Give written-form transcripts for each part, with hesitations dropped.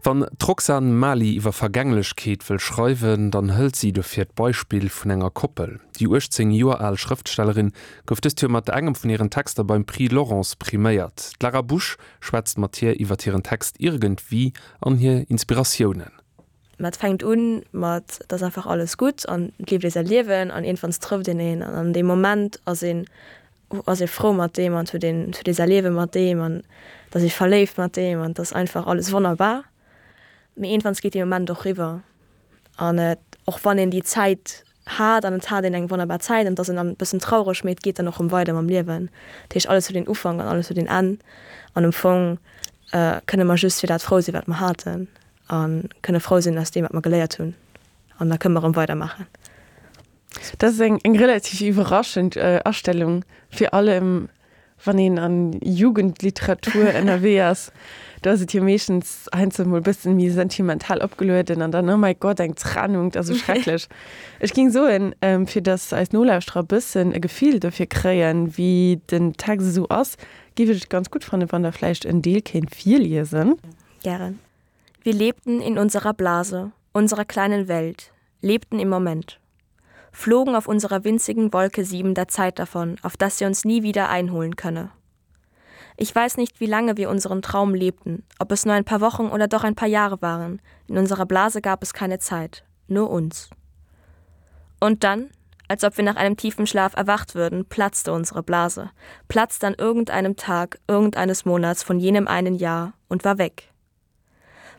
Wann d'Roxane Mali iwwer Vergänglechkeet wëll schreiwen, dann hëlt si dofir d'Beispill vun enger Koppel. Déi 18 Joer al Schrëftstellerin gouf dëst Joer mat engem vun hiren Texter beim Prix Laurence priméiert. D'Lara Busch schwätzt mat hir iwwer hiren Text Irgendwie an hir Inspiratiounen. Mä et fänkt un mat, et ass einfach alles gutt an et leeft ee säi Liewen an iergendwanns trëfft een een an an deem Moment ass een ass ee frou mat deem an huet een huet ee säi Liewe mat deem an et ass ee verléift mat deem an et ass einfach alles wonnerbar. Mee iergendwanns geet dee Moment och riwwer an et och wann een déi Zäit hat an et hat een eng wonnerbar Zäit an et ass een dann e bëssen traureg, mee et geet dann och rëm weider mam Liewen. Dat heescht alles huet een Ufank an alles huet een Enn an am Fong kënne mer just fir dat frou sinn, wat mer haten A kënne frou sinn aus deem, wat mer geléiert hunn. An da kënne mer erëm weidermaachen. Dat ass eng eng relativ iwwerraschend Astellung, fir allem wann een an Jugendliteratur ënnerwee ass. Do ass et jo meeschtens heiansdo mol e bëssen méi sentimental opgelueden an dann, oh mäi Gott, eng Trennung, dat ass esou schrecklech. Ech géing soen, fir datt eis Nolauschterer e bëssen e Gefill dofir kréien, wéi den Text esou ass, géif ech et ganz gutt fannen, wann Der vläicht en Deel kéint virliesen. Gären. Wir lebten in unserer Blase, unserer kleinen Welt, lebten im Moment. Flogen auf unserer winzigen Wolke 7 der Zeit davon, auf dass sie uns nie wieder einholen könne. Ich weiß nicht, wie lange wir unseren Traum lebten, ob es nur ein paar Wochen oder doch ein paar Jahre waren. In unserer Blase gab es keine Zeit, nur uns. Und dann, als ob wir nach einem tiefen Schlaf erwacht würden, platzte unsere Blase, platzte an irgendeinem Tag irgendeines Monats von jenem einen Jahr und war weg.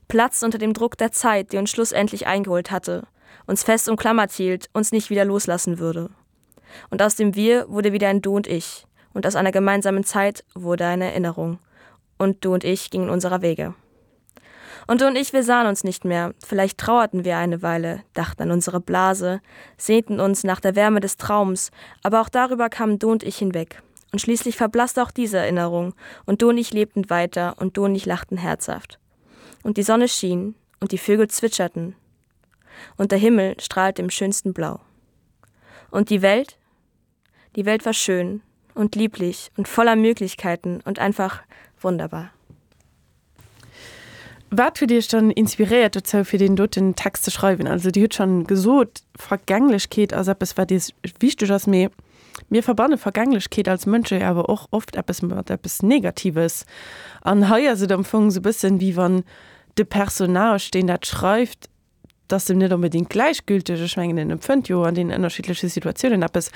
Platz unter dem Druck der Zeit, die uns schlussendlich eingeholt hatte, uns fest umklammert hielt, uns nicht wieder loslassen würde. Und aus dem Wir wurde wieder ein Du und Ich, und aus einer gemeinsamen Zeit wurde eine Erinnerung. Und du und ich gingen unserer Wege. Und du und ich, wir sahen uns nicht mehr. Vielleicht trauerten wir eine Weile, dachten an unsere Blase, sehnten uns nach der Wärme des Traums, aber auch darüber kamen du und ich hinweg. Und schließlich verblasste auch diese Erinnerung, und du und ich lebten weiter, und du und ich lachten herzhaft. Und die Sonne schien, und die Vögel zwitscherten, und der Himmel strahlte im schönsten Blau. Und die Welt? Die Welt war schön und lieblich und voller Möglichkeiten und einfach wunderbar. Wat huet Iech dann inspiréiert dozou, fir deen doten Text ze schreiwen? Also Dir hutt schonn gesot, Vergänglechkeet ass eppes, wat Iech wichteg ass, mee mir verbanne Vergänglechkeet als Mënsche jo awer och oft eppes mat eppes Negatives. An hei ass et am Fong esou e bëssen, wéi wann de Personnage, deen dat schreift, 't ass em net onbedéngt gläichgülteg, ech mengen en empfënnt jo an deenen ënnerschiddleche Situatiounen eppes,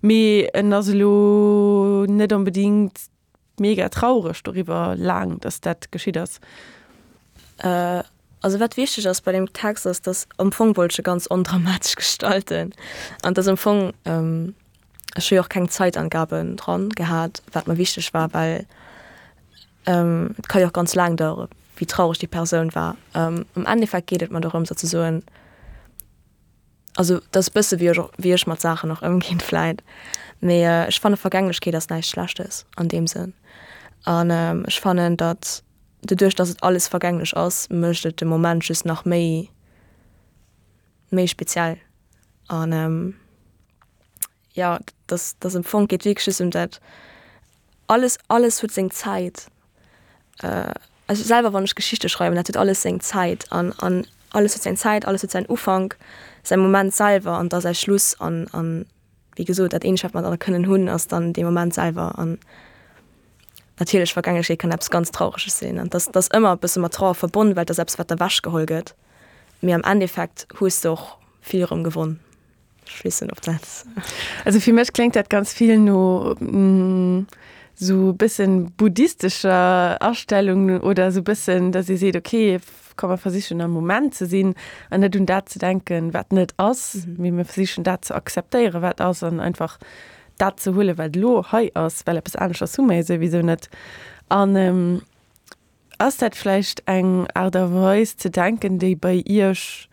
mee en ass elo net onbedéngt mega traureg doriwwer laang, datt dat geschitt ass. Also wat wichteg ass bei deem Text ass, datt am Fong wollt ech e ganz ondramatesch gestalten an datt am Fong, ech hu jo och keng Zeitangaben dran gehat, wat mer wichteg war, well Et ka jo och ganz laang dauere wéi traureg déi Persoun war. Am Endeffekt geet et mer dorëms ze soen, also dat ass e bësse wéi ech och wéi ech mat Saachen och ëmginn vläit, mee ech fanne Vergänglechkeet ass näischt Schlechtes an deem Sënn. An ech fannen, datt doduerch, datt et alles vergänglech ass, mécht et de Moment just nach méi méi speziell an. Jo, dass dass am Fong geet wierklech just ëm dat, alles alles huet seng Zäit. Also selwer wann ech Geschichte schreiwen, dat huet alles seng Zäit an an alles huet seng Zäit, alles huet säin Ufank, säi Moment selwer an da säi Schluss an an wéi gesot dat eenzegt wat mer dann kënnen hunn ass dann dee Moment selwer an natierlech Vergänglechkeet kann eppes ganz Traureges sinn an dass dass ëmmer e bësse mat Trauer verbonn, well et ass eppes wat ewechgeholl gëtt, mee am Endeffekt hues de och vill erëm gewonn. Schlissen op dat. Also fir mech kléngt dat ganz vill no sou bëssen buddhistescher Astellung oder sou bëssen, dass ee seet, okay, komm mer versichen am Moment ze sinn an net un dat ze denken, wat net ass, mee mir versichen dat ze akzeptéieren, wat ass an einfach dat ze huelen, wat elo hei ass, well eppes aneschters hu mer jo souwisou net. An ass dat vläicht eng Aart a Weis ze denken, déi bei Iech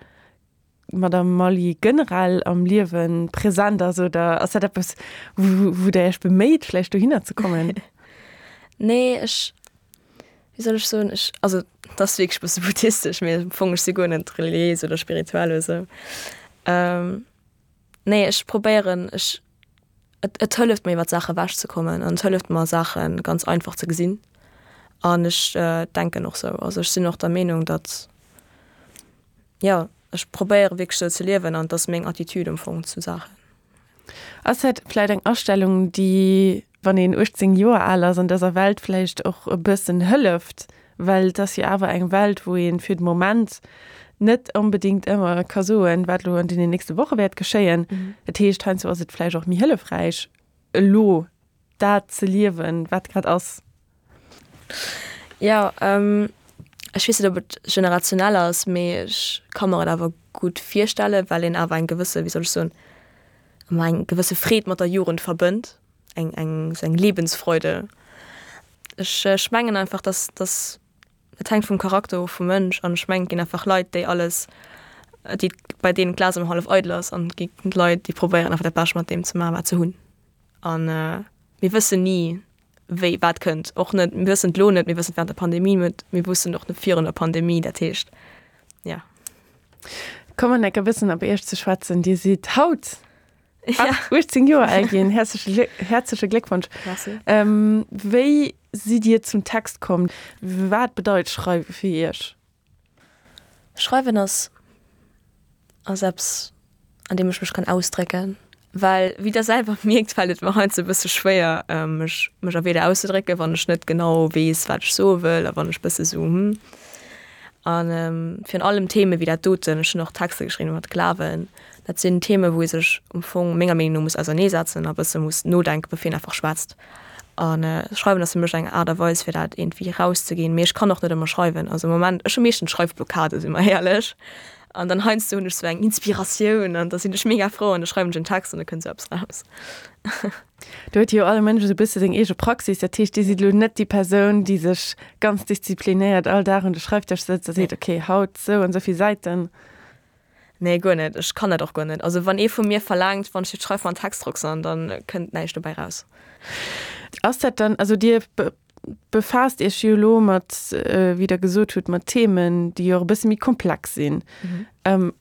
Madame Mally generell am Liewe present ass oder ass dat eppes, wou Der Iech beméit, vläicht dohinner ze kommen? Nee, ech, wéi soll ech soen, ech, also dat ass wierklech e bësse buddhistesch, mee am Fong ech si guer net reliéis oder spirituell oder esou. Nee, ech probéieren, ech, et, et hëlleft mir iwwer d'Saache ewech ze kommen an et hëlleft mer Saache ganz einfach ze gesinn an ech denken och sou. Also ech sinn och der Meenung, datt. Jo, ech probéiere wierklech esou ze liewen an et ass meng Attitude am Fong zu Saachen. Ass dat vläit eng Astellung, déi, wann een 18 Joer al ass, an dëser Welt vläicht och e bëssen hëlleft? Well et ass jo awer eng Welt, wou ee fir de Moment net onbedéngt ëmmer ka soen, wat elo an deenen nächste Woche wäert geschéien. Dat heescht, heiansdo ass et vläicht och méi hëllefräich, elo dat ze liewen, wat grad ass. Jo, ech weess net, ob et generationell ass, mee ech ka mer et awer gutt virstellen, well een awer eng gewësse, wéi soll ech soen, ëmmer eng gewësse Freed mat der Jugend verbënnt, eng, eng, esou eng Lebensfreude. Ech, ech mengen einfach, dass, dass, et hänkt vum Charakter of vum Mënsch an ech mengen, et ginn einfach Leit, déi alles, déi, bei deenen d'Glas ëmmer hallef eidel ass an et gi Leit, déi probéieren einfach dat Bescht mat deem ze maachen, wat se hunn. An mir wëssen ni, wéi wat kënnt. Och net, mir wëssen et elo net, mir wëssen et während der Pandemie net, mir wussten et och net virun der Pandemie. Dat heescht, ja. Kommen enk e bëssen op Iech ze schwätzen. Dir sidd haut 18 Joer al ginn. Häerzleche häerzleche Gléckwonsch. Merci. Wéi sidd Dir zum Text komm? Wat bedeit Schreiwe fir Iech? Schreiwen ass ass eppes an deem ech mech kann ausdrécken, well wéi der selwer mierkt fält et mer heiansdo e bësse schwéier mech mech a Wierder auszedrécken, wann ech net genau weess wat ech soe wëll a wann ech bësse sou hm an virun allem Theme wéi dat doten, ech hunn och Texter geschriwwen iwwer Glawen, dat sinn Theme wou ee sech am Fong menger Meenung no muss auserneesetzen a bësse muss nodenken bevir een einfach schwätzt. An schreiwen ass fir mech eng Aart a Weis fir dat iergendwéi erauszeginn. Mee ech kann och net ëmmer schreiwen. Also am Moment, ech hu meeschtens Schreifblockade si mer éierlech. An dann heiansdo hunn ech sou eng Inspiratioun an da sinn ech mega frou an da schreiwen ech en Text an da kënnt sou eppes raus. Do huet jo all Mënsch esou e bësse seng eege Praxis. Dat heescht, Dir sidd elo net déi Persoun, déi sech ganz disziplinéiert all Dag un de Schreifdësch sëtzt a seet, okay, haut sou an sou vill Säiten. Nee, guer net. Ech kann dat och guer net. Also wann ee vu mir verlaangt, wann ech fir d'Schreif mer en Text roxan, dann kënnt näischt dobäi raus. Ass dat dann, also Dir befaasst Iech jo elo mat, wéi Der gesot hutt, mat Themen, déi jo och e bësse méi komplex sinn.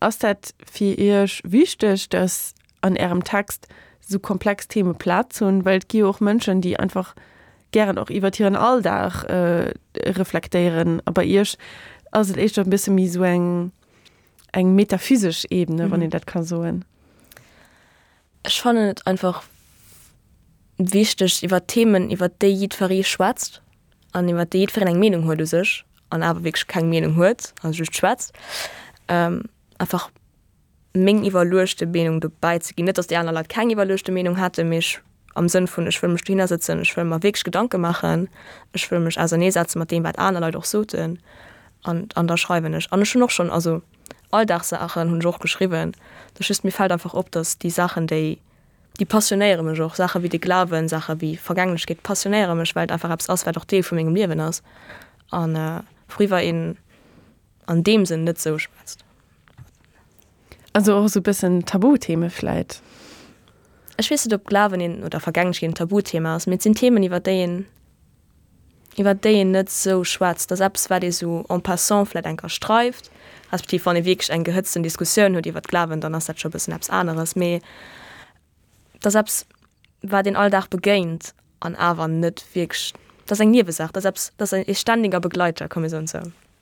Ass dat fir Iech wichteg, datt an Ärem Text esou komplex Theme Plaz hunn? Well et gi jo och Mënschen, déi einfach gären och iwwert hiren Alldag reflektéieren. A bei Iech ass et éischter e bësse méi esou eng, eng metaphysesch Ebene, wann een dat ka soen. Ech fannen et einfach wichteg, iwwer Themen, iwwer déi jiddweree schwätzt an iwwer déi jiddwereen eng Meenung huet u sech an awer wierklech keng Meenung huet, also just schwätzt, einfach meng iwwerluechte Meenung dobäi ze ginn. Net, datt déi aner Leit keng iwwerluechte Meenung hätten, mee ech am Sënn vun, ech wëll mech dohinner sëtzen, ech wëll mer wierklech Gedanke maachen, ech wëll mech auserneesetze mat deem, wat aner Leit och soten an an da schreiwen ech. An ech hunn och schonn, also Alldagssaachen hunn ech och geschriwwen, dat ass just, mir fält einfach op, datt déi Saachen, déi, déi passionéiere mech och, Saache wéi de Glawen, Saache wéi Vergänglechkeet passionéiere mech, well et einfach eppes ass, wat och Deel vu mengem Liewen ass an wouriwwer een an deem Sënn net sou schwätzt. Also och esou bëssen Tabutheme vläit? Ech weess net, ob Glawen een oder Vergänglechkeet een Tabuthema ass, mee et sinn Themen, iwwer déi een, iwwer déi een net sou schwätzt. Dat ass eppes, wat ee sou en passant vläit eng Kéier streift, respektiv wann ee wierklech eng gehëtzten Diskussioun huet iwwer d'Glawen, dann ass dat scho e bëssen eppes aneres. Mee et ass eppes, wat een all Dag begéint an awer net wierklech, dat ass eng Niewesaach, dat ass eppes, dat ass ee ständiger Begleiter, komm mir soen et sou.